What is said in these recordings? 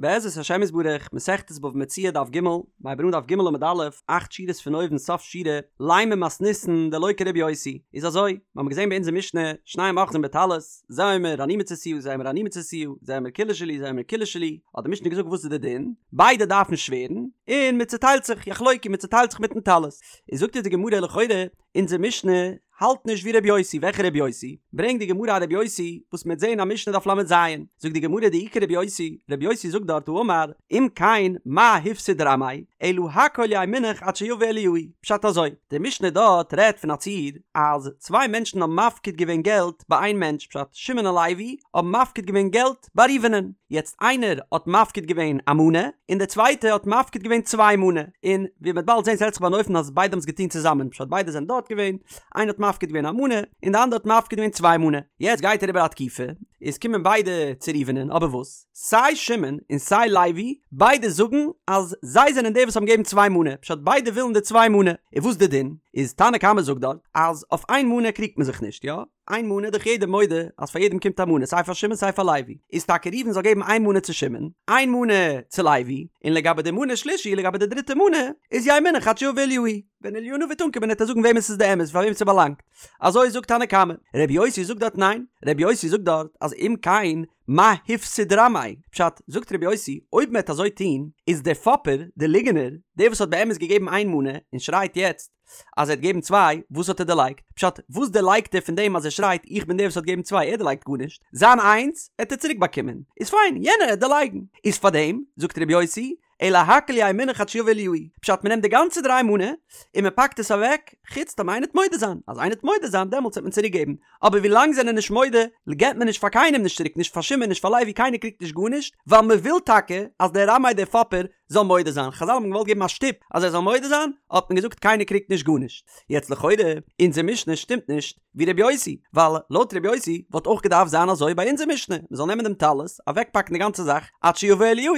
בעזרת השם יתברך, מסכת בבא מציעא דף ג, מ'הייבט אן דף ג עמוד א', אכט שורות פון אויבן סוף שורה, לימא מתניתין דלא כרבי יוסי, איז אזוי, מיר האבן געזען ביי אונזער משנה, שנים אוחזין בטלית, זה אומר אני מצאתיה זה אומר אני מצאתיה, זה אומר כולה שלי זה אומר כולה שלי, האט די משנה געזאגט וואס איז די דין, ביידע דארפן שווערן, און מען צוטיילט זיך, יחלוקו, מען צוטיילט זיך מיטן טלית. איז זאגט אונז די גמרא לכאורה, אונזער משנה האלט נישט ווי רבי יוסי, וועלכע רבי יוסי? ברענגט די גמרא א רבי יוסי וואס מ'וועט זעהן א משנה דף ל"ז, זאגט די גמרא דאי כרבי יוסי, רבי יוסי זאגט דארט האמר, אם כן מה הפסיד רמאי, אלא הכל יהא מונח עד שיבא אליהו, פשט אזוי, די משנה דארט רעדט פון א ציור אז צוויי מענטשן האבן מפקיד געווען געלט ביי איין מענטש, פשט שמעון און לוי האבן מפקיד געווען געלט ביי ראובנ'ן, יעצט איינער האט מפקיד געווען א מנה, און דער צווייטער האט מפקיד געווען צוויי מנה, און ווי מ'וועט באלד זען ס'רעדט זיך ביי אן אופן אז ביידע האבן עס געטון צוזאמען, פשט ביידע זענען דארט געווען, איינער האט מפקיד געווען א מנה, און די אנדערע האט מפקיד געווען צוויי מנה, יעצט גייט אריבער א תקופה, איז קומען ביידע צו ראובנ'ן, אבער וואס? סיי שמעון און סיי לוי, ביידע זאגן אז זיי זענען די וואס האבן געגעבן צוויי מנה, פשט ביידע ווילן די צוויי מנה, און וואס די דין? איז תנא קמא זאגט דארט אז אויף איין מנה קריגט מען זיך נישט, יא? איין מנה דאך יעדער מודה אז פאר יעדעם קומט א מנה סיי פאר שמעון סיי פאר לוי, איז טאקע ראובן זאל געבן איין מנה צו שמעון, איין מנה צו לוי, און לגבי די מנה שלישי לגבי די דריטע מנה איז יהא מונח עד שיבא אליהו, ווען אליהו הנביא וועט אנקומען וועט ער זאגן וועמען ס'איז די אמת פאר וועם ס'באלאנגט, אזוי זאגט תנא קמא, רבי יוסי זאגט דארט ניין, רבי יוסי זאגט דארט אז אם כן מה הפסיד רמאי, פשט, זאגט רבי יוסי, אויב מ'עט אזוי טון, איז דער פאפער, דער ליגענער, דער וואס האט באמת געגעבן איין מנה, און שרייט יעצט, אז ער האט געגעבן צוויי, וואס האט ער דערלייגט? פשט, וואס דערלייגט ער פון דעם אז ער שרייט איך בין דער וואס האט געגעבן צוויי, ער דערלייגט גארנישט, זיין איינס העט ער צוריק באקומען, איז פיין, יענער העט דערלייגן, איז פארדעם, זאגט רבי יוסי, אלא הכל יהא מונח עד שיבא אליהו, פשט מען נעמט די גאנצע דריי מנה, און מען פאקט עס אוועק, חוץ טאמער איינער העט מודה זיין, אז איינער העט מודה זיין דעמאלטס העט מען צוריק געבן, אבער ווי לאנג זענען נישט מודה, געבט מען נישט פאר קיינעם נישט צוריק, נישט פאר שמעון נישט פאר לוי קיינער קריגט נישט גארנישט, ווייל מען וויל טאקע אז דער רמאי דער פאפער זאל מודה זיין, חזל האבן געוואלט געבן א שטופ אז ער זאל מודה זיין, האט מען געזאגט קיינער קריגט נישט גארנישט. יעצט לכאורה, אונזער משנה שטימט נישט ווי רבי יוסי, ווייל לויט רבי יוסי וואלט אויך געדארפט זיין אזוי ביי אונזער משנה, מען זאל נעמען דעם טלית, אוועקפאקן די גאנצע זאך עד שיבא אליהו,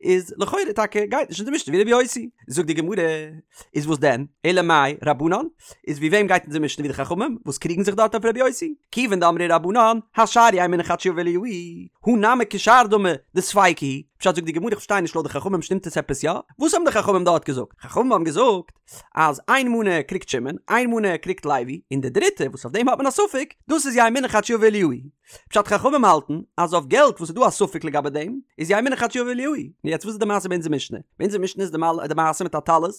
איז לכאורה טאקע גייט נישט אונזער משנה ווי רבי יוסי. זאגט די גמרא, איז וואס דען? אלא מאי רבנן? איז ווי וועם גייט אונזער משנה ווי די חכמים וואס קריגן זיך דארט אויף רבי יוסי? כיוון דאמרי רבנן, השאר יהא מונח עד שיבא אליהו, הא נמי כשאר דמי דספיקא הוא, פשט זאגט די גמרא איך פארשטיי נישט לויט די חכמים שטימט עס עפעס יא? וואס האבן די חכמים דארט געזאגט? חכמים האבן געזאגט אז איין מנה קריגט שמעון, איין מנה קריגט לוי, און די דריטע וואס אויף דעם האט מען א ספק, דאס איז יהא מונח עד שיבא אליהו. פשט חכמים האלטן אז אויף געלט וואס איז דא א ספק לגבי דעם, איז יהא מונח עד שיבא אליהו. נו יעצט וואס איז די מעשה ביי אונזער משנה? ביי אונזער משנה איז די מעשה מיט א טלית,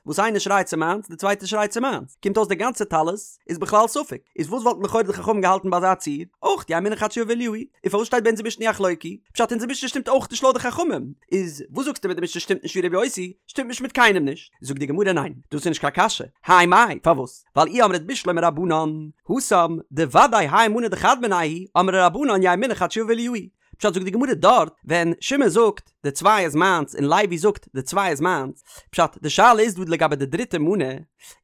וואס איינער שרייט ס'איז מיינס די צווייטע שרייט ס'איז מיינס, קומט אויס די גאנצע טלית איז בכלל ספק, איז וואס וואלטן לכאורה די חכמים געהאלטן ביי אזא ציור? אויך יהא מונח עד שיבא אליהו, און פארוואס שטייט ביי אונזער משנה יחלוקו? פשט אונזער משנה שטימט אויך נישט לויט די חכמים, איז וואס זאגסטו מיט די משנה שטימט נישט ווי רבי יוסי, שטימט נישט מיט קיינעם נישט, זאגט די גמרא ניין, דאס איז נישט קיין קשיא, האי מאי, פארוואס? ווייל אי אמרת בשלמא רבנן, התם, דודאי האי מנה דחד מינייהו, אמרי רבנן יהא מונח עד שיבא אליהו, פשט זאגט די גמרא דארט ווען שמעון זאגט די צוויי איז מיינס און לוי זאגט די צוויי איז מיינס, פשט די שאלה איז דא לגבי די דריטע מנה,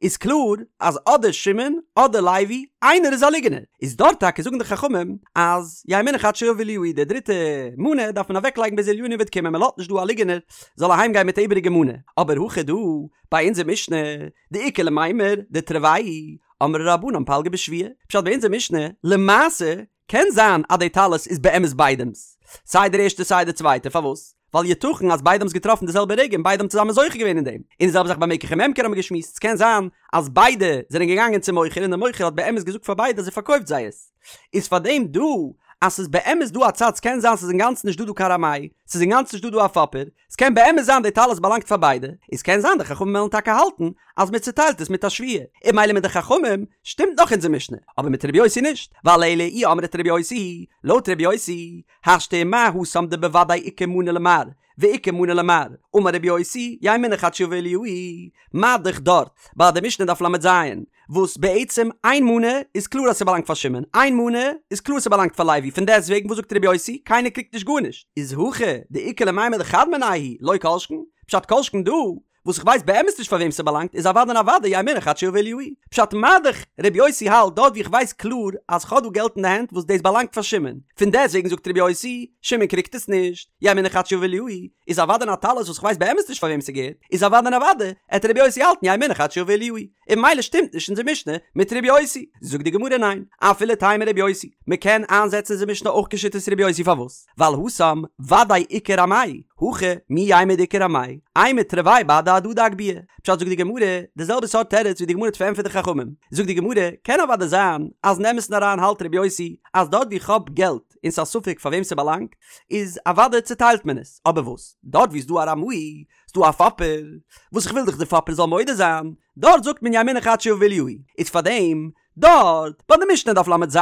איז קלאר אז אדער שמעון אדער לוי איינער איז א ליגענער, איז דארט טאקע זאגן די חכמים אז יהא מונח עד שיבא אליהו די דריטע מנה דארף מען אוועק לייגן ביז אליהו הנביא וועט קומען מען לאזט נישט דא א ליגענער זאל אהיים גיין מיט א איבעריגע מנה, אבער הכא דא ביי אונזער משנה דאיכא למימר דתרוייהו אמרי רבנן פלגא בשבועה, פשט ביי אונזער משנה למעשה קען זיין אז די טלית איז באמת ביידעמס, סיי דער ערשטער סיי דער צווייטער, פארוואס? ווייל יתכן אז ביידע האבן עס געטראפן די זעלבע רגע און ביידע האבן צוזאמען זוכה געווען אין דעם, און די זעלבע זאך ביי מקח וממכר האבן מיר געשמועסט, ס'קען זיין אז ביידע זענען געגאנגען צום מוכר און דער מוכר האט באמת געזאגט פאר ביידע אז ער פארקויפט זיי עס, איז פארדעם דא אז ס'איז באמת דא א צד ס'קען זיין ס'איז אינגאנצן נישט דא דא קיין רמאי, ס'איז אינגאנצן נישט דא דא א פאפער, ס'קען באמת זיין די טלית באלאנגט פאר ביידע, איז קען זיין די חכמים וועלן טאקע האלטן אז מען צוטיילט עס מיט א שבועה, און ממילא מיט די חכמים שטימט נאך אונזער משנה, אבער מיט רבי יוסי נישט, ווייל אלא אי אמרת רבי יוסי, לויט רבי יוסי, השתא ומה התם דבוודאי איכא מנה למר, ואיכא מנה למר, אמר רבי יוסי, יהא מונח עד שיבא אליהו, מה דאך דארט, ביי די משנה דף ל"ז, וואס בעצם איין מנה איז קלאר אז ס'באלאנגט פאר שמעון, איין מנה איז קלאר ס'באלאנגט פאר לוי, פון דעסטוועגן וואס זאגט רבי יוסי, קיינער קריגט נישט גארנישט, איז הכא דאיכא למימר דחד מינייהו לא כל שכן, פשט כל שכן דא, וואס איך ווייס באמת נישט פאר וועם ס'באלאנגט איז אוודאי און אוודאי יהא מונח עד שיבא אליהו. פשט מה דאך רבי יוסי האלט דארט ווי איך ווייס קלאר אז כ'האב דא געלט אין די הענט וואס דאס באלאנגט פאר שמעון, פון דעסטוועגן זאגט רבי יוסי, שמעון קריגט עס נישט, יהא מונח עד שיבא אליהו, איז אוודאי און א טלית וואס כ'ווייס באמת נישט פאר וועם ס'געהערט, איז אוודאי און אוודאי עט רבי יוסי האלטן יהא מונח עד שיבא אליהו. און ממילא שטימט נישט אונזער משנה מיט רבי יוסי. זאגט די גמרא ניין, אפילו תימא רבי יוסי, מ'קען איינזעצן אונזער משנה אויך כשיטת רבי יוסי פארוואס? ווייל התם ודאי איכא רמאי. הכא מי יימר דאיכא רמאי, אימא תרוייהו בהדי הדדי אגבוה. פשט זאגט די גמרא, די זעלבע סארט תירוץ ווי די גמרא האט פארענטפערט די חכמים. זאגט די גמרא, קען אוודאי זיין אז אין אמת'ן אריין האלט ר' יוסי אז דארט ווי איך האב געלט און ס'איז א ספק פאר וועם ס'באלאנגט, איז אוודאי צוטיילט מען עס, אבער וואס דארט ווי ס'דא א רמאי, ס'דא א פאפער, וואס איך וויל דאך די פאפער זאל מודה זיין, דארט זאגט מען יהא מונח עד שיבא אליהו, איז פארדעם דארט ביי די משנה דף ל"ז,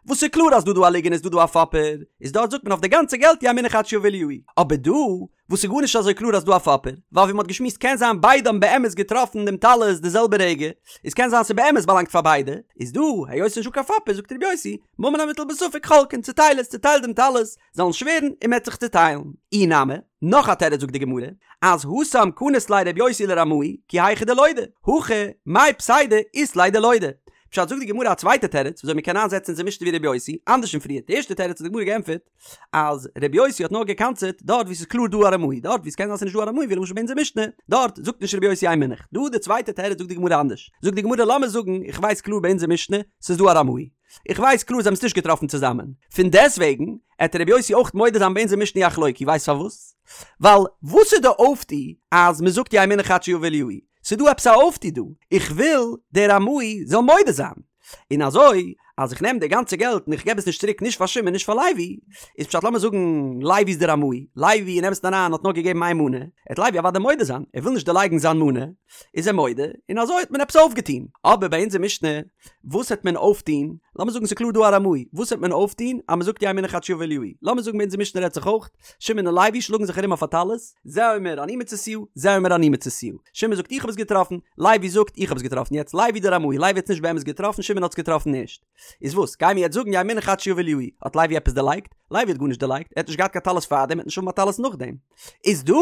וואס איז קלאר אז דא דא א ליגענער איז דא דא א פאפער, איז דארט זאגט מען אויף די גאנצע געלט יהא מונח עד שיבא אליהו, אבער דא וואס איז גארנישט אזוי קלאר אז דא א פאפער, ווייל ווי מ'האט געשמועסט קען זיין ביידע האבן באמת געטראפן דעם טלית די זעלבע רגע, איז קען זיין ס'באמת באלאנגט פאר ביידע, איז דא היות ס'נישטא קיין פאפער זאגט ר' יוסי, ממון המוטל בספק חולקין, צוטייל עס, צוטייל דעם טלית, זאלן שווערן און מ'עט זיך צוטיילן. אי נמי, נאך א תירוץ זאגט די גמרא, אז התם קניס ליה ר' יוסי לרמאי, כי היכי דלודי, הכא מאי פסידא אית ליה דלודי. פשט זאגט די גמרא א צווייטע תירוץ וויאזוי מ'קען איינזעצן אונזער משנה ווי ר' יוסי, אנדערש פון פריער, די ערשטע תירוץ האט די גמרא געענטפערט, אז ר' יוסי האט נאר גע'קנס'עט דארט וואו ס'איז קלאר דא א רמאי, דארט וואו ס'קען זיין ס'נישט דא א רמאי ווי למשל ביי אונזער משנה, דארט זאגט נישט ר' יוסי יהא מונח. דא די צווייטע תירוץ זאגט די גמרא אנדערש, זאגט די גמרא לאמיר זאגן איך ווייס קלאר ביי אונזער משנה ס'איז דא א רמאי, איך ווייס קלאר זיי האבן עס נישט געטראפן צוזאמען, פון דעסוועגן עט ר' יוסי אויך מודה זיין ביי אונזער משנה יחלוקו, ווייסט פארוואס? ווייל וואס איז די אויפטו אז מ'זאגט יהא מונח עד שיבא אליהו? ס'איז דא עפעס א אויפטו דא, איך וויל דער רמאי זאל מודה זיין, און אזוי אז איך נעם די גאנצע געלט און איך געב עס נישט צוריק נישט פאר שמעון נישט פאר לוי, איז פשט לאמיר זאגן לוי איז דער רמאי, לוי אין אמת'ן אריין האט נאר געגעבן איין מנה, עט לוי אוודאי מודה זיין, ער וויל נישט דערלייגן זיין מנה, איז ער מודה, און אזוי האט מען עפעס אויפגעטון. אבער ביי אונזער משנה, וואס העט מען אויפטון, לאמיר זאגן ס'איז קלאר דא א רמאי, וואס העט מען אויפטון אז מ'זאגט יהא מונח עד שיבא אליהו, לאמיר זאגן ביי אונזער משנה רעדט זיך אויך, שמעון און לוי שלאגן זיך ארום אויף א טלית, זה אומר אני מצאתיה, זה אומר אני מצאתיה. שמעון זאגט איך האב עס געטראפן, לוי זאגט איך האב עס געטראפן, יעצט לוי דער רמאי, לוי האט עס נישט באמת געטראפן, שמעון האט עס געטראפן ערשט. איז וואס, גיימיר יעצט זאגן יהא מונח עד שיבא אליהו, האט לוי עפעס דערלייגט? לוי האט גארנישט דערלייגט, ער האט נישט געהאט קיין טלית פארדעם, ער וועט נישט האבן א טלית נאכדעם. איז דא,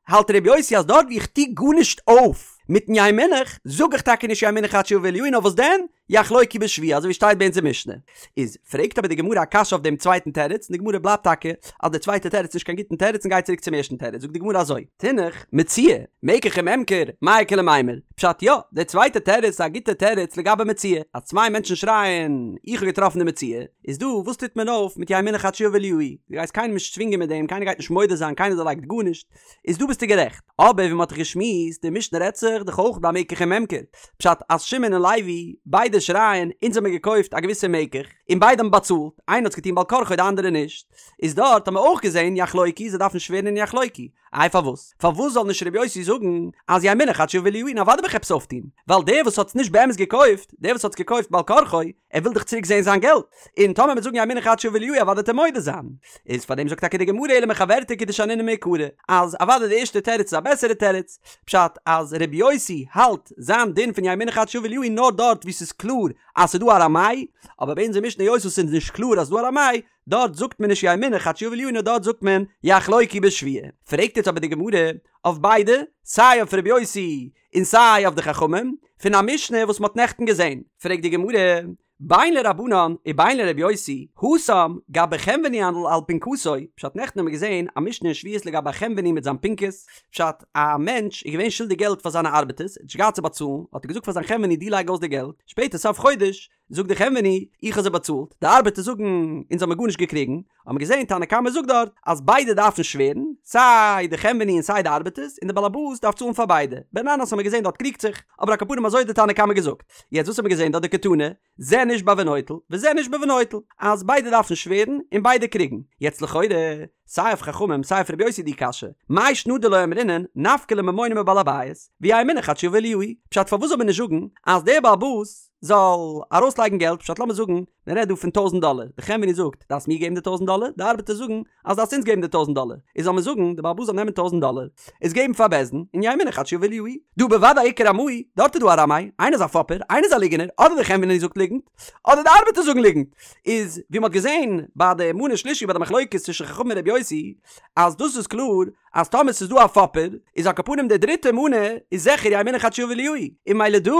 האלט ר' יוסי אז דארט ווי איך טו גארנישט אויף מיטן יהא מונח, זאג איך טאקע נישט יהא מונח עד שיבא אליהו, נאר וואס דען? יחלוקו בשבועה אזוי ווי שטייט ביי אונזער משנה. איז פרעגט אבער די גמרא א קשיא אויף דעם צווייטן תירוץ, און די גמרא בלייבט טאקע אז דער צווייטער תירוץ איז נישט קיין גוטן תירוץ און גייט צוריק צום ערשטן תירוץ, זאגט די גמרא אזוי, תינח, מציאה, מקח וממכר, מאי איכא למימר, פשט יא, דער צווייטער תירוץ איז א גוטער תירוץ לגבי מציאה, אז צוויי מענטשן שרייען איך האב געטראפן די מציאה, איז דא וואס טוט מען אויף מיט יהא מונח עד שיבא אליהו, דו גייסט קיינעם נישט צווינגען מיט דעם, קיינער גייט נישט מודה זיין, קיינער דערלייגט גארנישט, איז דא ביסטו גערעכט. אבער ווי מ'האט דאך געשמועסט, די משנה רעדט זיך דאך אויך ביי מקח וממכר. פשט אז שמעון און לוי ביידע שרייען אונז האמיר געקויפט א געוויסע מקח, און ביידע האבן באצאלט, איינער האט עס געטון בעל כרחו די אנדערע נישט, איז דארט האט מען אויך געזען יחלוקו זיי דארפן שווערן און יחלוקו. איי פארוואס? פארוואס זאל נישט ר' יוסי זאגן אז יהא מונח עד שיבא אליהו און אוודאי וועל איך עפעס אויפטון, ווייל דער וואס האט עס נישט באמת געקויפט, דער וואס האט עס געקויפט בעל כרחו, ער וויל דאך צוריק זעהן זיין געלט, און טאמער מ'וועט זאגן יהא מונח עד שיבא אליהו אוודאי וועט ער מודה זיין. איז פאר דעם זאגט טאקע די גמרא אלא מחוורתא כדשנינן מעיקרא, אז אוודאי די ערשטע תירוץ איז א בעסערע תירוץ, פשט אז ר' יוסי האלט זיין דין פון יהא מונח עד שיבא אליהו נאר דארט וואו ס'איז קלאר אז ס'איז דא א רמאי, אבער ביי אונזער משנה היות וואס ס'איז נישט קלאר אז ס'איז דא א רמאי, דארט זאגט מען נישט יהא מונח עד שיבא אליהו נאר דארט זאגט מען יחלוקו בשבועה. פרעגט יעצט אבער די גמרא אויף ביידע, סיי אויף ר' יוסי און סיי אויף די חכמים, פון א משנה וואס מ'האט נעכטן געזען, פרעגט די גמרא, בין לרבנן ובין לר' יוסי, התם, גבי חנווני על פנקסו, פשט נעכטן האבן מיר געזען א משנה אין שבועות לגבי א חנווני מיט זיין פנקס, פשט, א מענטש איז געווען שולדיג געלט פאר זיינע ארבעטערס, ער האט נישט געהאט צו באצאלן, האט ער געזאגט פאר זיין חנווני דו לייג אויס די געלט, שפעטער סוף חודש, זאגט די חנווני, איך האב זיי באצאלט, די ארבעטער זאגן, אונז האמיר גארנישט געקריגן, האבן מיר געזען תנא קמא זאגט דארט, אז ביידע דארפן שווערן, סיי די חנווני און סיי די ארבעטערס, און די באלעבאס דארף צאלן פאר ביידע, בן ננס האמיר געזען דארט קריגט זיך, אבער על כל פנים אזוי האט די תנא קמא געזאגט. יעצט וואס האמיר געזען דארט דקתני, זה נשבע ונוטל, וזה נשבע ונוטל, אז ביידע דארפן שווערן, און ביידע קריגן. יעצט לכאורה, סיי אויף חכמים סיי אויף רבי יוסי די קשיא, מאי שנא דלא אמרינן נפקא ליה ממונא מבעל הבית, ויהא מונח עד שיבא אליהו, פשט פארוואס זאל מען נישט זאגן אז דער בעל הבית זאל ארויסלייגן געלט, פשט לאמיר זאגן מען רעדט דא פון טויזנט דאלער, די חנווני זאגט דארפסט מיר געבן די טויזנט דאלער, די ארבעטער זאגן אז דארפסט אונז געבן די טויזנט דאלער, איז זאל מען זאגן די בעל הבית זאל נעמען טויזנט דאלער עס געבן פאר בית דין און יהא מונח עד שיבא אליהו, דהא בוודאי איכא רמאי, דארט איז דא א רמאי, איינער איז א פאפער, איינער איז א ליגענער, אדער די חנווני זאגט ליגנט, אדער די ארבעטער זאגן ליגנט, איז ווי מ'האט געזען ביי די מנה שלישי ביי די מחלוקת צווישן חכמים און רבי יוסי, אז דאס איז קלאר אז טאמער ס'איז דא א פאפער, איז על כל פנים די דריטע מנה איז זיכער יהא מונח עד שיבא אליהו, און ממילא דא.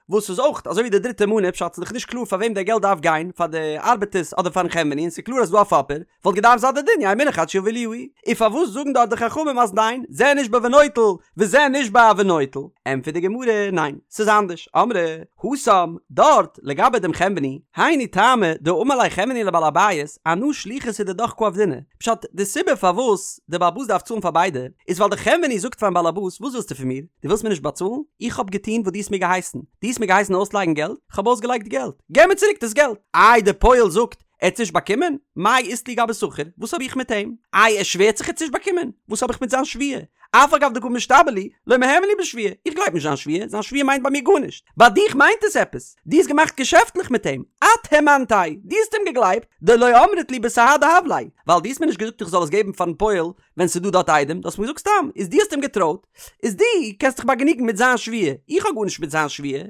וואס איז אויך אזוי ווי די דריטע מנה, פשט ס'איז דאך נישט קלאר פאר וועם די געלט דארף גיין, פאר די ארבעטערס אדער פארן חנווני, און ס'איז קלאר אז ס'דא א פאפער, וואלט געדארפט זיין די דין יהא מונח עד שיבא אליהו, און פארוואס זאגן דארט די חכמים אז ניין, זה נשבע ונוטל, וזה נשבע ונוטל? ענטפערט די גמרא, ניין, ס'איז אנדערש, אמרי, התם, דארט, לגבי דעם חנווני, היינו טעמא דאמר ליה חנווני לבעל הבית, אנא שליחותא דידך קא עבדינא, פשט, די סיבה פארוואס די בעל הבית דארף צאלן פאר ביידע, איז ווייל די חנווני זאגט פארן בעל הבית, וואס ווילסטו פון מיר? דו ווילסט מיר נישט באצאלן? איך האב געטון וואס דו האסט מיר געהייסן, דו האסט מיר געהייסן אויסלייגן געלט, איך האב אויסגעלייגט געלט, געב מיר צוריק דאס געלט! איי די פועל זאגט, ער האט נישט באקומען? מאי אית לי גבי שכיר? וואס האב איך מיט אים? איי ער שווערט זיך ער האט נישט באקומען? וואס האב איך מיט זיין שבועה? אף על גב דקא משתבע לי, לא מהימן לי בשבועה, איך גלייב נישט זיין שבועה, זיין שבועה מיינט ביי מיר גארנישט. ביי דיך מיינט עס עפעס, דו האסט געמאכט געשעפטליך מיט אים, את הימנתיה, דו האסט אים געגלייבט, דלא אמרת לי בסהדי הב ליה, ווייל דו האסט מיר נישט געזאגט איך זאל עס געבן פארן פועל ווען ס'איז דא דארט עדים, דו האסט מיר געזאגט סתם, איז דו האסט אים געטרויט, איז דו קענסט דיך באגענוגן מיט זיין שבועה, איך האב גארנישט מיט זיין שבועה,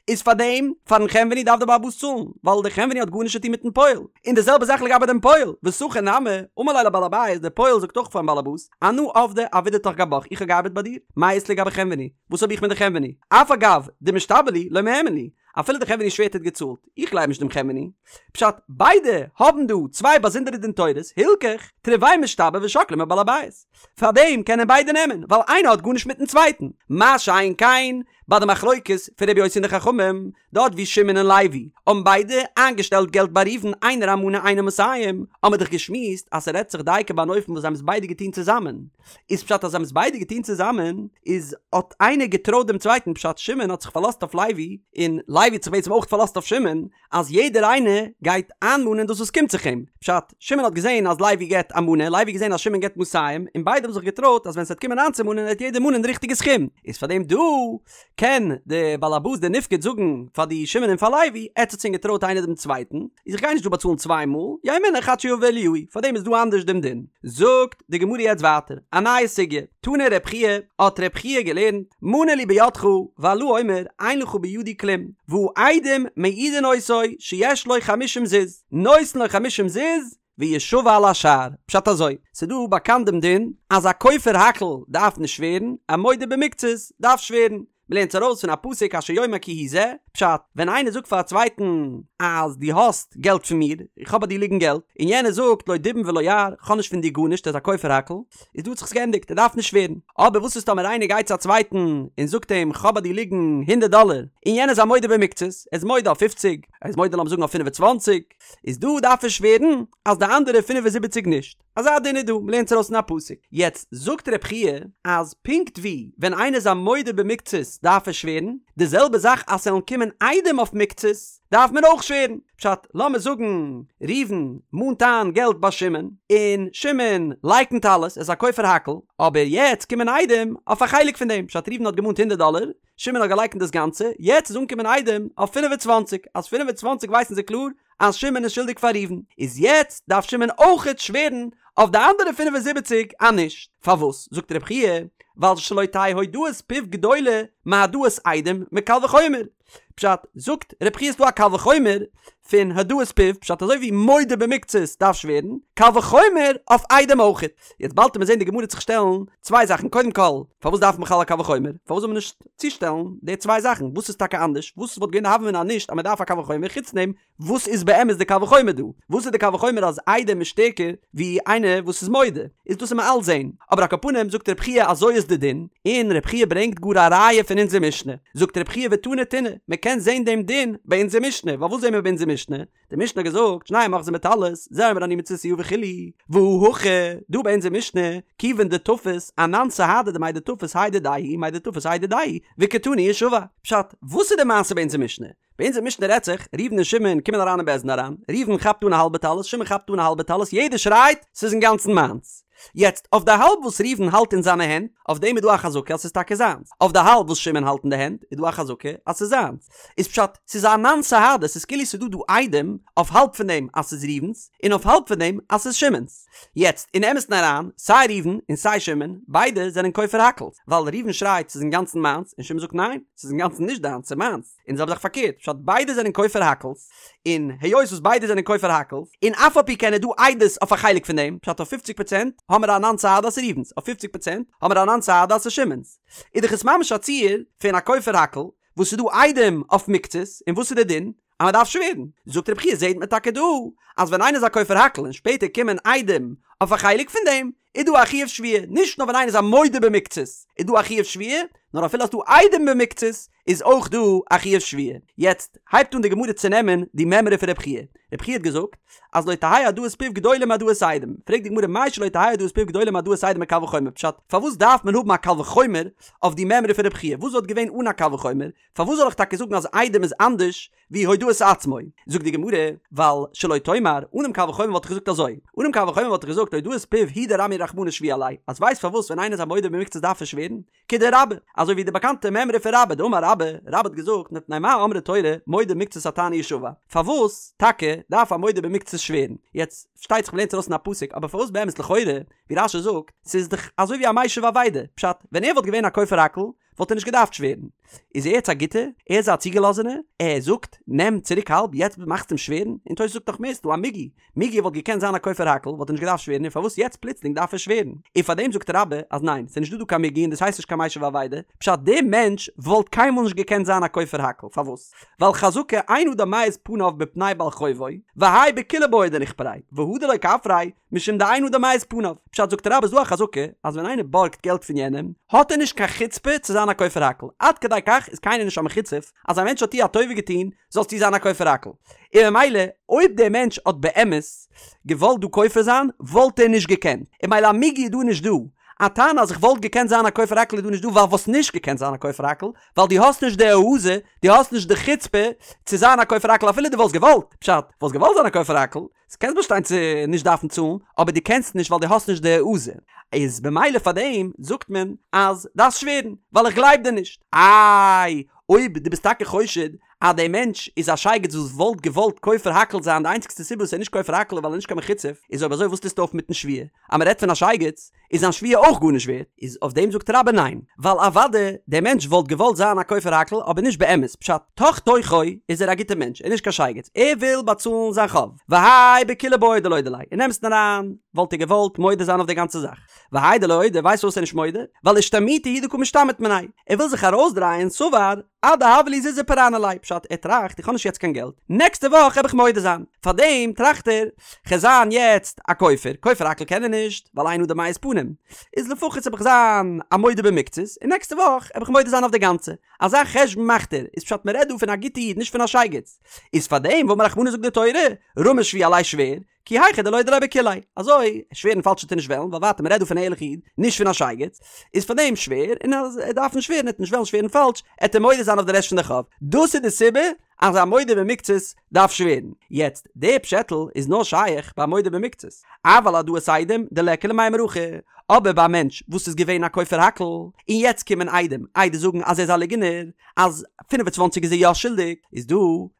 איז פאר דעם, פארן חנווני דארף דער בעל הבית צאלן, ווייל דער חנווני האט גארנישט צו טון מיטן פועל. און די זעלבע זאך לגבי דעם פועל, ושכיר נמי, אמר ליה לבעל הבית, דער פועל זאגט אויך פארן בעל הבית, אנא עבדי עבידתך גבך, איך האב געארבעט ביי דיר, מאי אית לי גבי חנווני, וואס האב איך מיט די חנווני? אף על גב דמשתבע לי, לא מהימן לי, אפילו דער חנווני שווערט ער האט געצאלט, איך גלייב נישט דעם חנווני. פשט, ביידע האבן דא צוויי באזונדערע דין תורות, הלכך, תרוייהו משתבעי ושקלי מבעל הבית. פארדעם קענען ביידע נעמען, ווייל איינער האט גארנישט מיטן צווייטן. מה שאין כן, ביי די מחלוקת פון רבי יוסי און די חכמים, דארט ווי שמעון און לוי האבן ביידע איינגעשטעלט געלט ביי ראובן איינער א מנה איינער מאתים, האבן מיר דאך געשמועסט אז ס'רעדט זיך דייקא ביי אן אופן וואס זיי האבן עס ביידע געטון צוזאמען. איז פשט אז זיי האבן עס ביידע געטון צוזאמען, איז האט איינער געטרויט דעם צווייטן, פשט שמעון האט זיך פארלאזט אויף לוי, און לוי האט זיך בעצם אויך פארלאזט אויף שמעון, אז יעדער איינער גייט איינמאנען דאס וואס קומט זיך אים, פשט, שמעון האט געזען אז לוי געבט א מנה, לוי האט געזען אז שמעון געבט מאתים, און ביידע האבן זיך געטרויט אז ווען ס'וועט קומען איינצומאנען וועט יעדער מאנען די ריכטיגע סכום, איז פאר דעם דא קען די בעל הבית די נפקד זאגן פאר די שמעון און פאר לוי, עטץ האטס ענק געטרויט איינער דעם צווייטן, איז איך גיי נישט דא באצאלן צוויי מאל, יהא מונח עד שיבא אליהו, פאר דעם איז דא אנדערש דעם דין. זאגט די גמרא יעצט ווייטער א נייע סוגיא, תני רב חייא, האט רב חייא געלערנט, מנה לי בידך, והלה אומר, אין לך בידי כלום, והעדים מעידין אותו שיש לו חמישים זוז, נותן לו חמישים זוז, וישבע על השאר. פשט אזוי, ס'דא באקאנט דעם דין, אז א כופר הכל דארף נישט שווערן, א מודה במקצת דארף שווערן. מ'לערנט עס ארויס פון א פסוק אשר יאמר כי הוא זה, פשט, ווען איינער זאגט פאר א צווייטן אז דו האסט געלט פון מיר, איך האב ביי דיר ליגן געלט, און יענער זאגט לא דובים ולא יער, כ'האב נישט פון דיר גארנישט, ער איז א כופר הכל, איז דא האט זיך עס געענדיגט, ער דארף נישט שווערן. אבער וואס איז טאמער איינער גייט צו א צווייטן און זאגט אים כ'האב ביי דיר ליגן הונדערט דאלער, און יענער איז א מודה במקצת, ער איז מודה אויף פופציג, ער איז מודה לאמיר זאגן אויף פינף און צוואנציג, איז דא דארף ער שווערן אז די אנדערע פינף און זיבעציג נישט. אזא דין איז דא, מ'לערנט עס ארויס אין א פסוק. יעצט זאגט רב חייא אז פונקט ווי ווען איינער איז א מודה במקצת דארף ער שווערן, די זעלבע זאך אז ס'וועלן קומען עדים אויף מקצת דארף מען אויך שווערן. פשט, לאמיר זאגן ראובן מאנט איין געלט ביי שמעון, און שמעון לייקנט אלעס, ער איז א כופר הכל, אבער יעצט קומען עדים אויף א חלק פון דעם, פשט ראובן האט געמאנט הונדערט דאלער, שמעון האט געלייקנט דאס גאנצע, יעצט איז אנגעקומען עדים אויף 25, אז 25 ווייסן זיי קלאר אז שמעון איז שולדיג פאר ראובן, איז יעצט דארף שמעון אויכעט שווערן אויף די אנדערע 75 אז נישט. פארוואס? זאגט רב חייא, ווייל שלא תהא הודאת פיו גדולה מהעדאת עדים מקל וחומר. פשט, זאגט רב חייא ס'דא א קל וחומר פון הודאת פיו, פשט אזוי ווי מודה במקצת דארף שווערן, קל וחומר אויף עדים אויכעט. יעצט באלד וועט מען זען די גמרא וועט זיך שטעלן צוויי זאכן, קודם כל, פארוואס דארף מען בכלל א קל וחומר? פארוואס זאל מען נישט צושטעלן די צוויי זאכן? וואס איז טאקע אנדערש? וואס וואלט געווען די הוה אמינא אז נישט אז מען דארף א קל וחומר? חוץ דעם, וואס איז באמת די קל וחומר דא? וואס איז די קל וחומר אז עדים איז שטערקער ווי איינער וואס איז מודה? איז דאס וועט מען אלץ זען. אבער על כל פנים זאגט רב חייא אזוי איז די דין, און רב חייא ברענגט גאר א ראיה פון אונזער משנה. זאגט רב חייא ותני תונא, מען קען זען דעם דין ביי אונזער משנה. ווייל וואס זען מיר ביי אונזער משנה? די משנה האט געזאגט, שנים אוחזין בטלית, זה אומר אני מצאתיה וכו', והא הכא, דא ביי אונזער משנה, כיוון דתפס, אנן סהדי דמאי דתפס האי דידיה הוא, מאי דתפס האי דידיה הוא, וקתני ישבע. פשט, וואס איז די מעשה ביי אונזער משנה? ביי אונזער משנה רעדט זיך, ראובן און שמעון קומען אריין אין בית דין אריין, ראובן כאפט אן א האלבע טלית, שמעון כאפט אן א האלבע טלית, יעדער שרייט, ס'איז אינגאנצן מיינס. יעצט, אויף די האלב וואס ראובן האלט אין זיינע הענט, אויף דעם איז דא א חזקה אז ס'איז טאקע זיינס. אויף די האלב וואס שמעון האלט אין די הענט, איז דא א חזקה אז ס'איז זיינס. איז פשט, ס'איז אנן סהדי, ס'איז כאילו ס'איז דא דא עדים אויף האלב פון דעם אז ס'איז ראובן'ס, און אויף האלב פון דעם אז ס'איז שמעון'ס. יעצט, אין אמת'ן אריין, סיי ראובן און סיי שמעון, ביידע זענען כופר הכל'ס, ווייל ראובן שרייט ס'איז אינגאנצן מיינס, און שמעון זאגט ניין, ס'איז אינגאנצן נישט דיינס, ס'איז מיינס. און די זעלבע זאך פארקערט, פשט ביידע זענען כופר הכל'ס, און היות וואס ביידע זענען כופר הכל'ס, און אף על פי כן איז דא עדות אויף א חלק פון דעם, פשט אויף פופציג פראצענט האמער אנן סהדי אז ס'איז ראובן'ס, אויף פופציג פראצענט האמער אנן סהדי אז ס'איז שמעון'ס. איז דאך עס ממש א ציור פון א כופר הכל, וואס ס'איז דא עדים אויף מקצת, און וואס איז די דין? אז מען דארף שווערן. זאגט רבי חייא זעהט מען טאקע דא אז ווען איינער איז א כופר הכל און שפעטער קומען עדים אויף א חלק פון דעם, איז דא א חיוב שבועה, נישט נאר ווען איינער איז א מודה במקצת איז דא א חיוב שבועה, נאר אפילו אז ס'דא עדים במקצת איז אויך דא א חיוב שבועה. יעצט הייבט אן די גמרא צו נעמען די מימרא פון רבי חייא. רבי חייא האט געזאגט אז לא תהא הודאת פיו גדולה מהעדאת עדים. פרעגט די גמרא מאי שלא תהא הודאת פיו גדולה מהעדאת עדים מקל וחומר פשט, פארוואס דארף מען האבן א קל וחומר אויף די מימרא פון רבי חייא? וואס וואלט געווען אן א קל וחומר? פארוואס זאל איך טאקע זאגן אז עדים איז אנדערש ווי הודאת עצמו? זאגט די גמרא, ווייל שלא תאמר, אנעם קל וחומר וואלט איך געזאגט אזוי, אנעם קל וחומר וואלט איך געזאגט הודאת פיו הוא דרמיא רחמנא שבועה עליה, אז ווייסט פארוואס ווען איינער איז א מודה במקצת דארף ער שווערן? כדרבה, אזוי ווי די באקאנטע מימרא פון רבה, דאמר רבה, רבה האט געזאגט מפני מה אמרה תורה מודה במקצת הטענה ישבע, פארוואס טאקע דארף א מודה במקצת שווערן? יעצט, פארשטייט זיך מ'לערנט ארויס אין א פסוק, אבער פארוואס באמת לכאורה, ווי רש"י זאגט, ס'איז דאך אזוי ווי א משיב אבידה, פשט, ווען ער וואלט געווען א כופר הכל, וואלט ער נישט געדארפט שווערן. איז ער יעצט א גוטער? ער איז א צוגעלאזענער? ער זאגט, נעם צוריק האלב, יעצט מאכסטו אים שווערן? און תוס' זאגט נאך מער, ס'דא א מיגו. מיגו וואלט געקענט זיין א כופר הכל, וואלט ער נישט געדארפט שווערן, און פארוואס יעצט פלוצלינג דארף ער שווערן? און פארדעם זאגט רבה אז ניין, ס'איז נישטא דא קיין מיגו און דאס הייסט נישט קיין משיב אבידה, פשט דער מענטש וואלט קיינמאל נישט געקענט זיין א כופר הכל, פארוואס? ווייל חזקה אין אדם מעיז פניו בפני בעל חובו, והאי בכוליה בעי דניכפריה, והא דלא כפריה, משום דאין אדם מעיז פניו. פשט זאגט רבה איז דא א חזקה אז ווען איינער בארגט געלט פון יענעם האט ער נישט קיין חוצפה צו זיין א כופר הכל עד כדי כך איז קיינער נישט א מחוצף אז א מענטש האט דיר א טובה געטון זאלסטו זיין א כופר הכל און ממילא אויב דער מענטש האט באמת געוואלט דא כופר זיין וואלט ער נישט געקענט און ממילא א מיגו איז דא נישט דא א טענה אז איך וואלט געקענט זיין א כופר הכל איז דא נישט דא ווייל וואלסט נישט געקענט זיין א כופר הכל ווייל דו האסט נישט די העזה דו האסט נישט די חוצפה צו זיין א כופר הכל אפילו דו וואלסט געוואלט פשט וואלסט געוואלט זיין א כופר הכל קענסט באשטיין צו נישט דארפן צאלן, אבער דו קענסט נישט ווייל דו האסט נישט די העזה, איז במילא פאר דעם זאגט מען אז דארפסט שווערן, ווייל איך גלייב דיר נישט. איי, אויב דו ביסט טאקע חושד אז דער מענטש איז א שייגעץ וואס וואלט געוואלט כופר הכל זיין, די איינציגסטע סיבה וואס ער איז נישט כופר הכל איז ווייל ער איז נישט קיין מחוצף, איז אויב אזוי וואס טוסטו אויף מיטן שבועה? אז מען רעדט פון א שייגעץ, איז זיין שבועה אויך גארנישט ווערט? איז אויף דעם זאגט רבה ניין, ווייל אוודאי דער מענטש וואלט געוואלט זיין א כופר הכל אבער נישט באמת, פשט, תוך תוכו איז ער א גוטער מענטש, ער איז נישט קיין שייגעץ, ער וויל באצאלן זיין חוב, והאי בכוליה בעי דלודי ליה, אין אמת'ן אריין וואלט ער געוואלט מודה זיין אויף די גאנצע זאך, והאי דלא אודי, ווייסט פארוואס ער איז נישט מודה? ווייל אשתמוטי הוא דקא משתמיט מיניה, ער וויל זיך ארויסדרייען, סבר, עד דהוה לי זוזי פרענא ליה, פשט, ער טראכט איך האב נישט יעצט קיין געלט, נעקסטע וואך העב איך מודה זיין, פארדעם טראכט ער, כ'על זיין יעצט א כופר, כופר הכל קען ער נישט, ווייל אין אדם מעיז פנים, איז לפחות העב איך זיין א מודה במקצת, און נעקסטע וואך העב איך מודה זיין אויף די גאנצע, אזא חשבון מאכט ער, איז פשט מ'רעדט דא פון א גוטע איד נישט פון א שייגעץ, איז פארדעם ואמר רחמנא זאגט די תורה, רמי שבועה עליה שווער, כי היכי דלודי ליה בכוליה, אזוי, שווערן פאלש וועט ער נישט וועלן, ווייל ווייטער מ'רעדט דא פון א ערליכע איד, נישט פון א שייגעץ, איז פאר דעם שווער, און אז ער דארף נישט שווערן, ער וועט נישט וועלן שווערן פאלש, עט ער מודה זיין אויף די רעשט פון די חוב. דאס איז די סיבה אז א מודה במקצת דארף שווערן. יעצט, די פשעטל איז נאר שייך ביי מודה במקצת, אבל העדאת עדים דליכא למימר הכי, אבער ביי א מענטש וואס איז געווען א כופר הכל, און יעצט קומען עדים עדות זאגן אז ער איז א ליגענער, אז 25 איז ער יא שולדיג, איז דא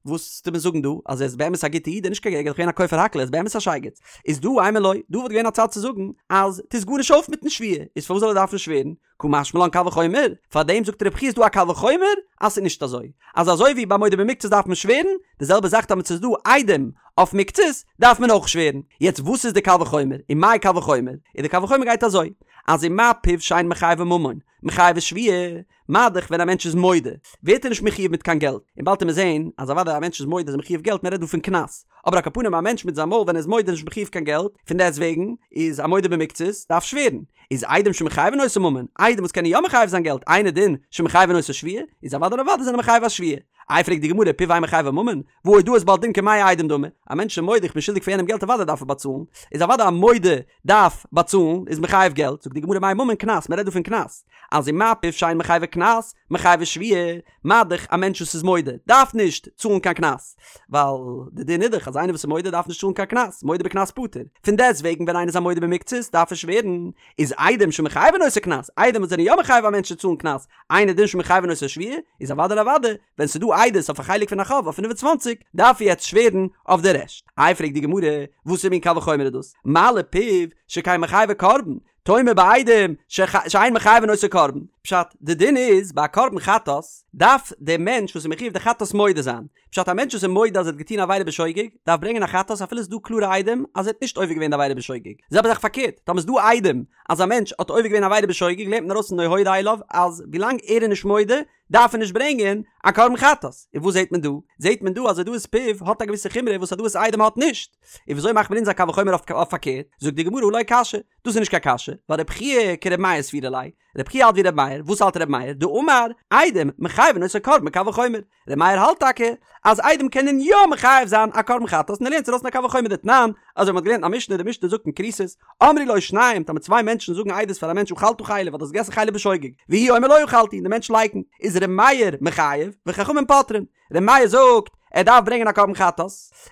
וואס טוט מען זאגן דא אז ער איז באמת א גוטע איד און נישט קיין ער איז געווען א כופר הכל ער איז באמת א שייגעץ, איז דא אימא לא, דא וואלט געווען א צד צו זאגן אז טוסט גארנישט אויף מיטן שבועה, איז פארוואס זאל ער דארפן שווערן? קא משמע לן קל וחומר, פארדעם זאגט רבי חייא איז דא א קל וחומר אז ס'איז נישט אזוי, אז אזוי ווי ביי מודה במקצת דארף מען שווערן, די זעלבע זאך טאמער ס'איז דא עדים אויף מקצת דארף מען אויך שווערן, יעצט וואס איז די קל וחומר, ומאי קל וחומר, און די קל וחומר גייט אזוי, אז ומה פיו שאין מחייבו ממון, מחייבו שבועה, מה דאך ווען א מענטש איז מודה ווערט ער נישט מחויב מיט קיין געלט, און באלד וועט מען זעהן אז אוודאי א מענטש איז מודה איז ער מחויב געלט מען רעדט דא פון קנס, אבער על כל פנים א מענטש מיט זיין מויל ווען ער איז מודה איז נישט מחויב קיין געלט, פון דעסט וועגן איז א מודה במקצת דארף שווערן, איז עדים שמחייבין אותו ממון, עדים וואס קענען יא מחייב זיין געלט, אינו דין שמחייבין אותו שבועה, איז אוודאי און אוודאי זענען מחייב א שבועה. איי פרעגט די גמרא פיו אין מחייבו ממון, והא הודאת בעל דין כמאה עדים דמי, א מענטש איז מודה איך בין שולדיג פאר יענעם געלט אוודאי דארף ער באצאלן, איז אוודאי א מודה דארף באצאלן איז מחייב געלט, זאגט די גמרא מאי ממון קנס, מען רעדט דא פון קנס, אז ומה פיו שאין מחייבו קנס, מחייבו שבועה, מה דאך א מענטש וואס איז מודה דארף נישט צאלן קיין קנס, ווייל די דין איז דאך אז איינער וואס איז מודה דארף נישט צאלן קיין קנס, מודה בקנס פטור, פון דעסט וועגן ווען איינער איז א מודה במקצת דארף ער שווערן, איז עדים שמחייבין אותו קנס, עדים וואס זענען יא מחייב א מענטש צו צאלן קנס, אינו דין שמחייבין אותו שבועה, איז אוודאי און אוודאי ווען ס'איז דא עדות אויף א חלק פון א חוב אויף 25 דארף ער יעצט שווערן אויף די רעשט. איי פרעגט די גמרא, וואסער מין קל וחומר איז דאס? מה לפיו שכן מחייבו קרבן, תאמר בעדים שאין מחייבין אותו קרבן. פשט, די דין איז ביי א קרבן חטאת דארף דער מענטש וואס איז מחויב די חטאת מודה זיין. פשט, א מענטש וואס איז מודה אז ער האט געטון א עבירה בשוגג, דארף ברענגען א חטאת אפילו ס'איז דא קלארע עדים אז ער האט נישט עובר געווען די עבירה בשוגג. זעלבע זאך פארקערט, טאמער ס'איז דא עדים אז א מענטש האט עובר געווען א עבירה בשוגג לערנט מען ארויס פון לא הודה אליו אז ווילאנג ער איז נישט מודה, דארף ער נישט ברענגען א קרבן חטאת. און וואס זעט מען דא? זעט מען דא אז הודאת פיו האט א געוויסע חומרא וואס הודאת עדים האט נישט. און וויאזוי מאכט מען אונז א קל וחומר אויף פארקערט? זאגט די גמרא הא לא קשיא, דאס איז נישט קיין קשיא, ווייל רבי חייא כרבי מאיר סבירא ליה, רבי חייא האלט ווי רבי מאיר, וואס האלט רבי מאיר? דאמר, עדים מחייבין אותו קרבן בקל וחומר. רבי מאיר האלט טאקע אז עדים קענען יא מחייב זיין א קרבן חטאת און ער לערנט עס ארויס פון א קל וחומר דתנן, אזוי ווי מ'האט געלערנט אין א משנה, די משנה זאגט אין כריתות, אמרו לו שניים, טאמער צוויי מענטשן זאגן עדות פאר א מענטש אכלת חלב אז דו האסט געגעסן חלב בשוגג, והוא אומר לא אכלתי, און די מענטש לייקנט, איז ר' מאיר מחייב, וחכמים פוטרין. ר' מאיר זאגט, ער דארף ברענגען א קרבן חטאת,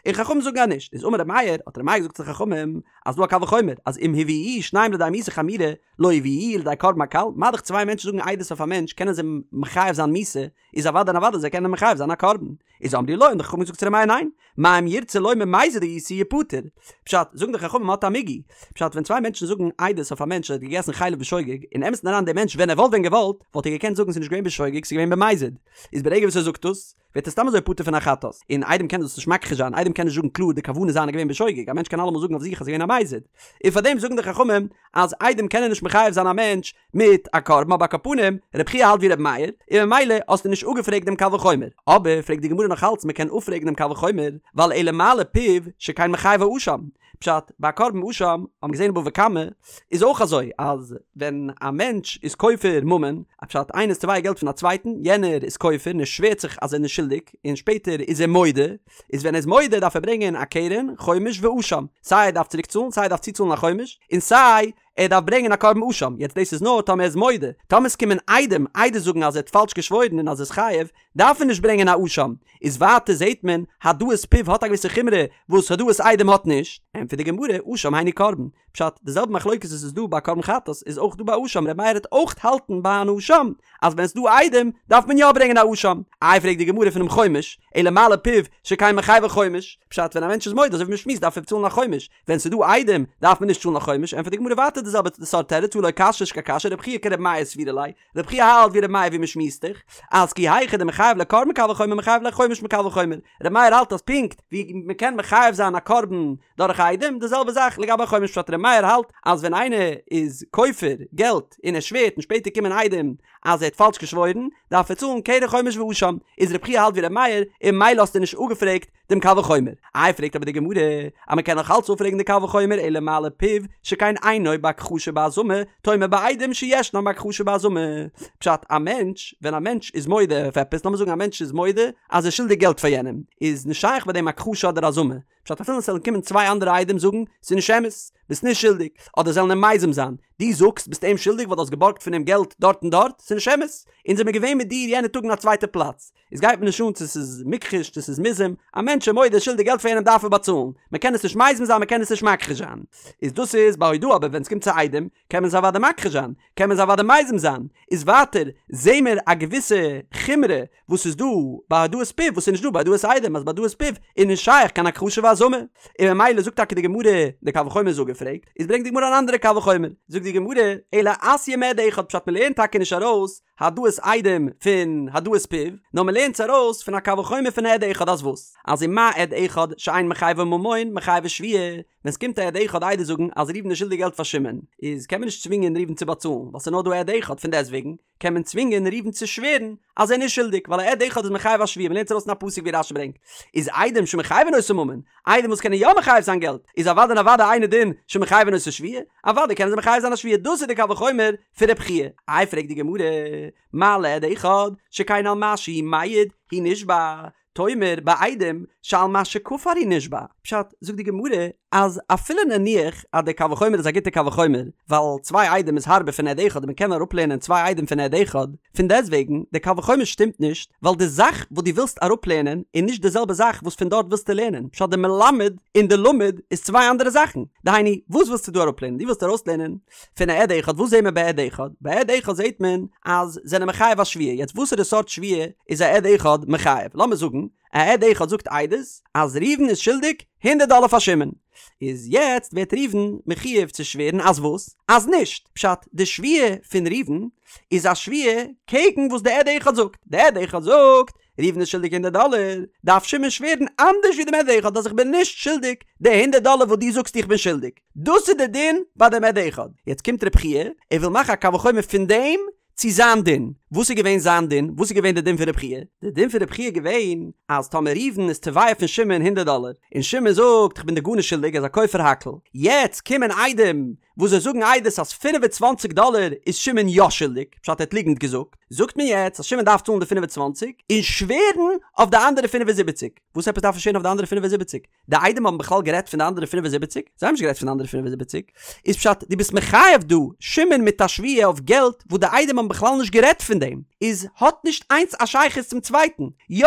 און חכמים זאגן אז נישט, איז אמר ר' מאיר, האט ר' מאיר געזאגט צו די חכמים, אז דא א קל וחומר, אז אם הביאוהו שניים לידי מיתה חמורה, לא יביאוהו לידי קרבן הקל, מה דאך צוויי מענטשן זאגן עדות אויף א מענטש קענען זיי מחייב זיין מיתה, איז אוודאי און אוודאי זיי קענען מחייב זיין א קרבן. איז אמרו לו, האבן די חכמים געזאגט צו ר' מאיר ניין, מה אם ירצה לומר מזיד הייתי יפטר. פשט, זאגן די חכמים מ'האט א מיגו. פשט, ווען צוויי מענטשן זאגן עדות אויף א מענטש אז ער האט געגעסן חלב בשוגג, אין אמת'ן אריין דער מענטש ווען ער וואלט ווען געוואלט, וואלט ער געקענט זאגן ס'איז נישט געווען בשוגג ס'איז געווען במזיד. איז ברגע וואס ער זאגט דאס, ווערט ער סתם אזוי פטור פון א חטאת. און עדים קענען דאס נישט מכחיש זיין, עדים קענען נישט זאגן קלאר די כוונה זיינע איז געווען בשוגג, א מענטש קען אלעמאל זאגן אויף זיך אז ס'איז געווען א מזיד. און פארדעם זאגן די חכמים אז עדים קענען נישט מחייב זיין א מענטש מיט א קרבן אבער על כל פנים, רבי חייא האלט ווי רבי מאיר, און ממילא האסטו נישט אפגעפרעגט דעם קל וחומר. אבער פרעגט די גמרא נאך אלץ מ'קען אפפרעגן דעם קל וחומר, ווייל אלא מה לפיו שכן מחייבו אשם. פשט, ביי א קרבן אשם, האט מען געזען אין בבא קמא, איז אויך אזוי אז ווען א מענטש איז כופר ממון, א פשט איינער איז תובע געלט פון א צווייטן, יענער איז כופר און ער שווערט זיך אז ער איז נישט שולדיג, און שפעטער איז ער מודה, איז ווען ער איז מודה דארף ער ברענגען א קרן, חומש ואשם, סיי ער דארף צוריק צאלן, סיי ער דארף צוצאלן א חומש, און סיי ער דארף ברענגען א קרבן אשם, יעצט דאס איז נאר טאמער ער איז מודה, טאמער עס קומען עדים עדות זאגן אז ער האט פאלש געשוואוירן און אז ער איז חייב, דארף ער נישט ברענגען א אשם, איז ווייטער זעהט מען העדאת פיו האט א געוויסע חומרא וואס העדאת עדים האט נישט, ענטפערט די גמרא, אשם היינו קרבן, פשט, די זעלבע מחלוקת וואס איז דא ביי קרבן חטאת איז אויך דא ביי אשם, ר' מאיר וועט אויך האלטן ביי אן אשם אז ווען עס איז דא עדים דארף מען יא ברענגען א אשם, איי פרעגט די גמרא פונעם חומש, אלא מה לפיו שכן מחייבו חומש, פשט ווען א מענטש איז מודה אזוי ווי מען שמועסט דארף ער צאלן א חומש, ווען ס'איז דא עדים דארף מען נישט צאלן א חומש, ענטפערט די גמרא ווייטער די זעלבע סארט תירוץ הא לא קשיא נישט קיין קשיא רבי חייא כרבי מאיר סבירא ליה, רבי חייא האלט ווי רבי מאיר ווי מ'שמועסט דאך אז כי היכי דמחייב ליה קרבן מקל וחומר מחייב ליה חומש מקל וחומר, רבי מאיר האלט אז פונקט ווי מ'קען מחייב זיין א קרבן דורך עדים די זעלבע זאך לגבי א חומש פשט רבי מאיר האלט אז ווען איינער איז כופר געלט און ער שווערט און שפעטער קומען עדים אז ער האט פאלש געשוואוירן דארף ער צאלן קרן חומש ואשם, איז רבי חייא האלט ווי רבי מאיר און ממילא האסטו נישט אפגעפרעגט דעם קל וחומר. איי פרעגט אבער די גמרא אז מען קען נאך אלץ אפפרעגן די קל וחומר אלא מה לפיו שכן אינו בהכחשה ובהזמה תאמר בעדים שישנן בהכחשה ובהזמה. פשט, א מענטש, ווען א מענטש איז מודה אויף עפעס, לאמיר זאגן א מענטש איז מודה אז ער איז שולדיג געלט פאר יענעם, איז נישט שייך ביי דעם הכחשה אדער הזמה. פשט, אפילו עס זאלן קומען צוויי אנדערע עדים זאגן, ס'איז נישט אמת, ביסט נישט שולדיג, אדער זאלן אים מזים זיין, דו זאגסט ביסט אים שולדיג ווייל דו האסט געבארגט פון אים געלט דארט און דארט, ס'איז נישט אמת, אונז זעמיר געווען מיט דיר יענע טאג אין א צווייטע פלאץ. עס גייט מיר נישט אן צו ס'איז מוכחש צו ס'איז מוזם, א מענטש איז מודה שולדיג געלט פאר יענעם דארף ער באצאלן, מען קען עס נישט מזים זיין מען קען עס נישט מכחיש זיין. איז דאס איז ביי הודאה אבער ווען עס קומט צו עדים קען מען עס אוודאי מכחיש זיין, קען מען עס אוודאי מזים זיין, איז ווייטער זעהן מיר א געוויסע חומרא וואס איז דא ביי הודאת פיו וואס איז נישט דא ביי הודאת עדים אז ביי הודאת פיו איז נישט שייך קיין הכחשה והזמה, און ממילא זאגט טאקע די גמרא די קל וחומר איז אפגעפרעגט, איז ברענגט די גמרא אן אנדערע קל וחומר, זאגט די גמרא אלא אתיא מעד אחד פשט מען לערנט טאקע נישט ארויס העדאת עדים פון העדאת פיו, נאר מען לערנט עס ארויס פון א קל וחומר פון עד אחד אז וואס? אז ומה עד אחד שאין מחייבו ממון מחייבו שבועה, ווען ס'קומט א עד אחד עדות זאגן אז ראובן איז שולדיג געלט פאר שמעון, איז קען מען נישט צווינגען ראובן צו באצאלן ווייל ס'איז נאר דא עד אחד, פון דעסטוועגן קען מען צווינגען ראובן צו שווערן אז ער איז נישט שולדיג ווייל א עד אחד איז מחייב א שבועה, מען לערנט עס ארויס פון א פסוק ווי רש"י ברענגט, איז עדים שמחייבין אותו ממון, עדים וואס קענען יא מחייב זיין געלט, איז אוודאי און אוודאי אינו דין שמחייבין אותו שבועה, אוודאי קענען זיי מחייב זיין א שבועה, דאס איז די קל וחומר פון רב חייא. איי פרעגט די גמרא, מה לעד אחד שכן על מה שהוא מעיד הוא נשבע, תאמר בעדים שעל מה שכפר הוא נשבע, פשט, זאגט די גמרא אז אפילו נניח אז די קל וחומר איז א גוטע קל וחומר, ווייל צוויי עדים איז הארבער פון עד אחד און מען קען אראפלערנען צוויי עדים פון עד אחד, פון דעסטוועגן, די קל וחומר שטימט נישט, ווייל די זאך וואס דו ווילסט אראפלערנען איז נישט די זעלבע זאך וואס פון דארט ווילסטו לערנען, פשט די מלמד און די למד איז צוויי אנדערע זאכן, דהיינו, וואס ווילסטו דא אראפלערנען? דו ווילסט ארויסלערנען פון א עד אחד, וואס זעהט מען ביי עד אחד? ביי עד אחד זעהט מען אז זענען מחייב א שבועה, יעצט וואסערע סארט שבועה איז א עד אחד מחייב? לאמיר זאגן א עד אחד זאגט עדות אז ראובן איז שולדיג הונדערט דאלער פאר שמעון, איז יעצט ווערט ראובן מחויב צו שווערן אז וואס? אז נישט! פשט, די שבועה פון ראובן איז א שבועה קעגן וואס די עד אחד זאגט, די עד אחד זאגט ראובן איז שולדיג הונדערט דאלער, דארף שמעון שווערן אנדערש ווי דעם עד אחד אז איך בין נישט שולדיג די הונדערט דאלער וואס דו זאגסט איך בין שולדיג. דאס איז די דין ביי דעם עד אחד. יעצט קומט רב חייא, ער וויל מאכן א קל וחומר פון דעם צו. צו זיין דין. וואס איז געווען זיין דין? וואס איז געווען די דין פון רב חייא? די דין פון רב חייא איז געווען אז טאמער ראובן איז תובע פון שמעון הונדערט דאלער, און שמעון זאגט איך בין דיר גארנישט שולדיג ער איז א כופר הכל, יעצט קומען עדים וואס זיי זאגן עדות אז 25 דאלער איז שמעון יא שולדיג, פשט ער האט ליגנט געזאגט, זאגט מען יעצט אז שמעון דארף צאלן די 25 און שווערן אויף די אנדערע 75. וואס עפעס דארף ער שווערן אויף די אנדערע 75? די עדים האבן בכלל גערעדט פון די אנדערע 75? זיי האבן נישט גערעדט פון די אנדערע 75. איז פשט דו ביסט מחייב דא שמעון מיט א שבועה אויף געלט וואס די עדים האבן בכלל נישט גערעדט פון דעם, איז האט נישט איינס א שייכות צום צווייטן. יא!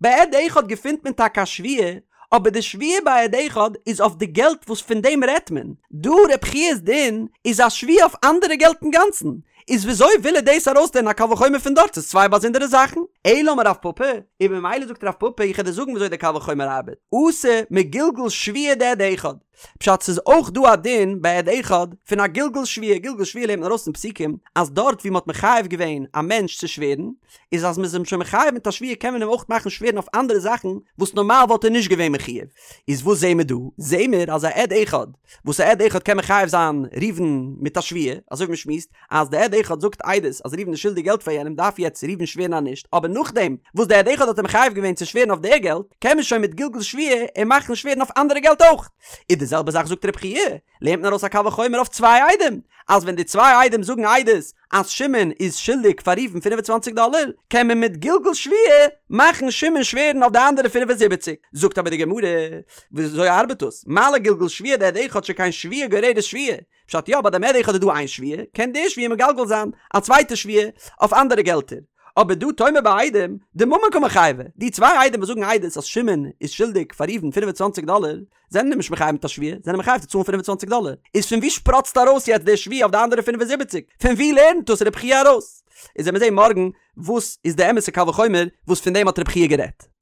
ביי עד אחד געפינט מען טאקע א שבועה, אבער די שבועה ביי עד אחד איז אויף די געלט וואס פון דעם רעדט מען. דא רב חייא'ס דין איז א שבועה אויף אנדערע געלט אינגאנצן. איז וויאזוי וויל ער דאס ארויסלערנען א קל וחומר פון דארט? ס'איז צוויי באזונדערע זאכן. אלא אמר רב פפא, און ממילא זאגט רב פפא איך וועל דיר זאגן וויאזוי די קל וחומר ארבעט, אתי מגלגול שבועה דעד אחד. פשט ס'איז אויך דא א דין ביי עד אחד פון א גלגול שבועה, גלגול שבועה לערנט מען ארויס פון פסוקים אז דארט ווי מ'האט מחייב געווען א מענטש צו שווערן, איז אז מ'איז אים שוין מחייב מיט א שבועה קען מען אים אויך מאכן שווערן אויף אנדערע זאכן וואס נארמאל וואלט ער נישט געווען מחויב. איז וואס זעהן מיר דא? זעהן מיר אז א עד אחד וואס א עד אחד קען מחייב זיין ראובן מיט א שבועה, אזוי ווי מ'שמועסט אז די עד אחד זאגט עדות אז ראובן איז שולדיג געלט פאר יענעם דארף יעצט ראובן שווערן אז נישט, אבער נאכדעם וואס די עד אחד האט אים מחייב געווען צו שווערן אויף די געלט קען מען שוין מיט גלגול שבועה אים מאכן שווערן אויף אנדערע געלט אויך. איז די זעלבע זאך זאגט רב חייא, לערנט מען ארויס א קל וחומר אויף צוויי עדים, אז ווען די צוויי עדים זאגן עדות אז שמעון איז שולדיג פאר ראובן 25 דאלער, קען מען מיט גלגול שבועה מאכן שמעון שווערן אויף די אנדערע 75. זאגט אבער די גמרא, וויאזוי ארבעט דאס? מה לגלגול שבועה דעד אחד שכן שבועה גוררת שבועה, פשט יא ביי דעם עד אחד איז דא איין שבועה, קען די שבועה מגלגל זיין א צווייטע שבועה אויף אנדערע געלטער. אבער דא תאמר בעדים, דממון קא מיחייבי, די צוויי עדים וואס זאגן עדות אז שמעון איז שולדיג פאר ראובן 25 דאלער, זענען אים נישט מחייב מיט א שבועה, זענען מחייב צו צאלן 25 דאלער. איז פון וואו שפראצט ארויס יעצט די שבועה אויף די אנדערע 75? פון וואו לערנט דאס רב חייא ארויס? איז עמיר זעהן מארגן וואס איז די אמת'ע קל וחומר וואס פון דעם האט רב חייא גערעדט.